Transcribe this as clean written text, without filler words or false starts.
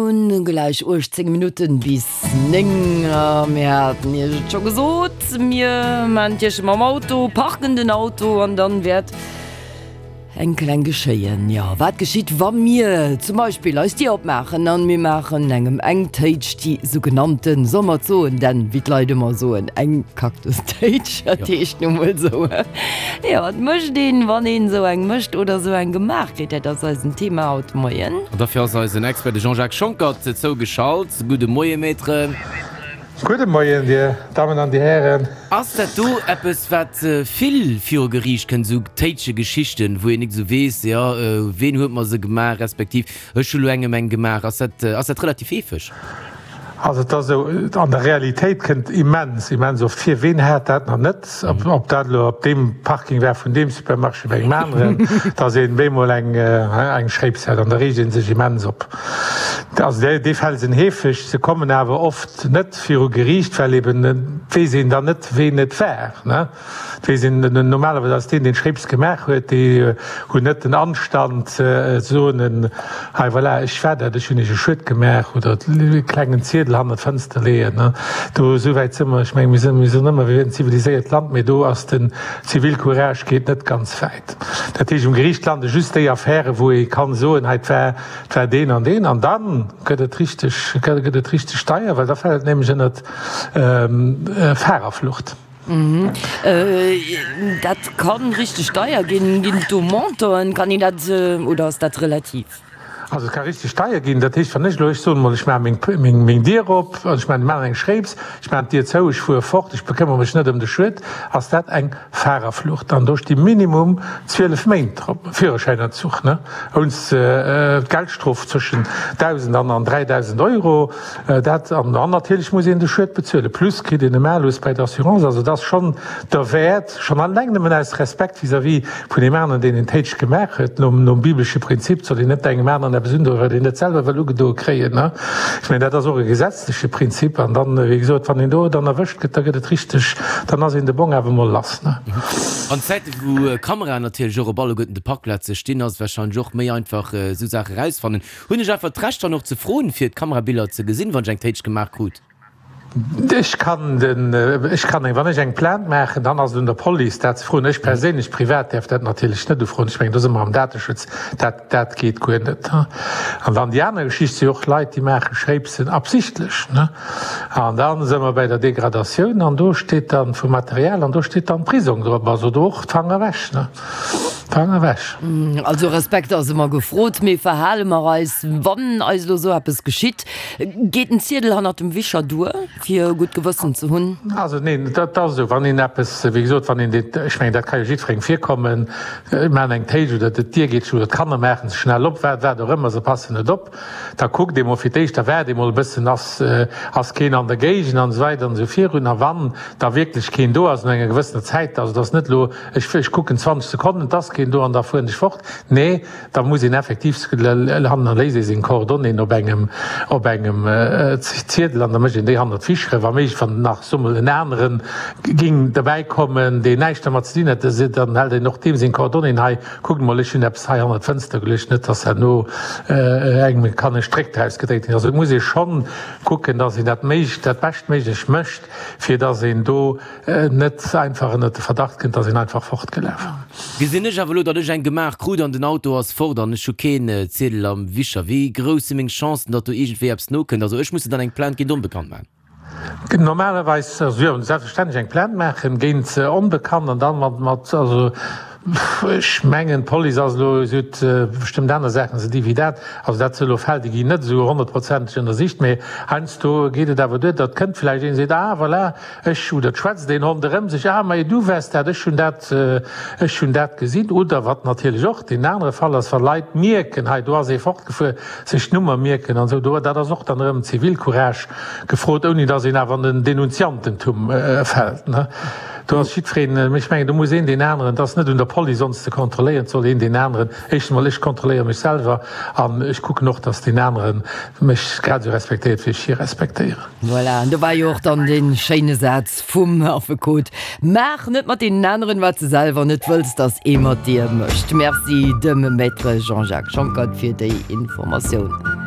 hunn gläich 18 Minutten bis 9 a mir haten Iech et scho gesot, mir maan d'Iech mam Auto, parken den Auto an dann wäert eng kleng geschéien. Jo, wat geschitt wa mir zum Beispill eis Dier opmaachen an mir maachen engem eng Téitsch, déi sougenannten, soll mer et soen, denn wéi d'Leit ëmmer soen, eng Kaktustéitsch, dat heescht nu mol esou. Jo, wat mécht een, wann een esou eng mécht oder esou eng gemaach kritt? Dat ass eisen Thema haut de Moien. An dofir ass eisen Expert, de Jean-Jacques Schonckert, zougeschalt. Gudde Moie, Maître. Gudde Moien, Dir Dammen an Dir Hären. Ass dat do eppes, wat vill viru Geriicht kënnt, esou Téitsche-Geschichten, wou een nik esou weess, jo, ween huet mer se gemaach, respektiv ech hu lo engem eng gemaach? Ass dat, ass dat relativ heefeg? Also et ass esou, an der Realitéit kënnt immens, immens oft vir, ween hat dat nach net, ob dat elo op deem Parking war vun deem Supermarché oder engem aneren, datt een bemol eng, eng Schréips hat an da reegt ee sech immens op. Also déi Fäll sinn heefeg, se kommen awer oft net viru Geriicht, well eben et weess een dann net, ween et war. Et weess een, normalerweis ass deen, deen d'Schréips gemaach huet, déi hunn net den Anstand ze soen, hei voilà, ech war dat, ech hunn iech e Schued gemaach oder e klengen Ziedel hannert d'Fënster leeën. Do esou wäit si mer. Ech mengen, mir sinn, mir soen ëmmer, mir wieren en ziviliséiert Land, mee do ass den Zivilcourage geet net ganz wäit. Dat heescht, um Geriicht lande just déi Affären, wou ee kann soen, hei, et war, et war deen an deen. An da gëtt et richteg, gëtt et richteg deier, well da fält et nämlech ënnert Fahrerflucht. Dat kann richteg deier ginn. Ginn et do Montanten? Kann een dat, oder ass dat relativ? Also et ka richteg deier ginn. Dat heescht, wann ech elo, ech soen emol, ech maache meng, meng Dier op, also ech maachen eng Schréips, ech maachen d'Dier zou, ech fuere fort, ech bekëmmere mech net ëm de Schued, ass dat eng Fahrerflucht. An do sti minimum 12 Méint drop, Führerschäinentzuch, ne, ounst Geldstrof zwëschen 1.000 an 3.000 Euro. Dat, an dann natierlech muss een de Schued bezuelen, plus kritt een e Malus bei der Assurance. Also et ass schonn derwäert, schonn alleng nëmmen aus Respekt vis-à-vis vun deem aneren, deen een Téitsch gemaach huet, nom, nom bibelesche Prinzip, soll een net engem aneren eppes undoen, wat een net selwer wëll ugedoe kréien, ne? Ech mengen, dat ass och e gesetzleche Prinzip. An dann, wéi gesot, wann een do dann erwëscht gëtt, da gëtt et richteg, dann ass een de Bong awer emol lass, ne? An Zäite wou Kameraen natierlech och op alleguerten de Parkplaze stinn, ass et warscheinlech och méi einfach, esou Saache erausfannen. Hunn ech einfach d'Recht dann och ze froen fir d'Kamerabiller ze gesinn, wann ech eng Téitsch gemaach krut? Ech kann den, ech kann eng, wann ech eng Plainte maachen, dann ass et un der Police dat ze froen. Ech perséinlech privat däerf dat natierlech net ufroen. Ech mengen, do si mer am Dateschutz, dat, dat geet guer net. An dann déi aner Geschicht si och Leit, déi maache Schréipsen absichtlech, ne. An da si mer bäi der Degradatioun an do steet dann vum Material an do steet dann Prisong drop. Also do och d'Fanger ewech, ne. Fang ewech. Also Respekt ass ëmmer gefrot, mee verhale mer eis, wann eis elo esou eppes geschitt? Geet en Ziedel hannert dem Wischer duer, fir e gutt Gewëssen ze hunn? Also neen, dat ass esou, wann een eppes, wéi gesot, wann een dee, ech mengen, dat ka jo jiddwerengem virkommen, ech maachen eng Téitsch oder d'Dier geet zou oder d'Kanner maachen se schnell op, wat wat och ëmmer, se passen net op, da kuckt ee mol fir d'éischt, da waart ee mol e bëssen, ass ass keen an der Géigend an esou weider an esou virun. A wann da wierklech keen do ass no enger gewëssener Zäit, also et ass net elo, Ech, ech kucken 20 Sekonnen, et ass keen do an da fueren ech fort. Nee, da muss een effektiv hannerléisst ee seng Coordonnéeën op engem, op engem Ziedel an da mécht een déi hannert d'Ficheren. Wa méiglech, wann nach, soe mol, en anere géing derbäi kommen, deen näischt dermat ze dinn hätt, dann hält een och deem seng Coordonnéeën, hei, kuckt mol, ech hunn eppes hei hannert d'Fënster geluecht, net dass herno engem kann e Stréck draus gedréit ginn. Also et muss ee schonn kucken, dass een dat méiglech, dat Beschtméiglech mécht, fir dass een do net einfach ënnert de Verdacht kënnt, dass een einfach fortgelaf ass. Gesinn ech awer elo, datt ech eng gemaach krut an den Auto ass fort an ech hu keen Ziedel am Wischer, wéi grouss si meng Chancen, datt do iergendwéi eppes nokënnt? Also ech muss dann eng Plainte géint Onbekannt maachen? Normalerweis, also jo, selbstverständlech eng Plainte maachen géint Onbekannt an dann mat, mat, also ech mengen d'Police ass elo, si huet bestëmmt aner Saachen ze di wéi dat, also dat si elo Fäll, déi ginn net esou honnertprozenteg ënnersicht, mee heiansdo geet et awer duer, datt kënnt vläicht een, seet, ah voilà, Ech, oder et schwätzt een ronderëm sech, Ah, majo, du waars dat, ech hunn dat, ech hunn dat gesinn. Oder wat natierlech och deen anere Fall ass, wa Leit mierken, hei do ass ee fortgefuer, sech d'Nummer mierken an esou. Do, dat ass och dann erëm Zivilcourage gefrot, ouni datt een awer an den Denunziantentum fält, ne. Do ass jiddwereen, ech mengen, do muss een deen aneren, et ass net un der Police ons ze kontrolléieren, et soll een deen aneren, éischtens emol, ech kontrolléiere mech selwer an ech kucken och, datt deen anere mech grad esou respektéiert, wéi ech hie respektéieren. Voilà, an do war jo och dann dee schéine Saz vum Affekot, Maach net mat deenen aneren, wat s de selwer net wëlls, dass ee mat dir mécht. Merci dem Maître Jean-Jacques Schonckert fir déi Informatioun.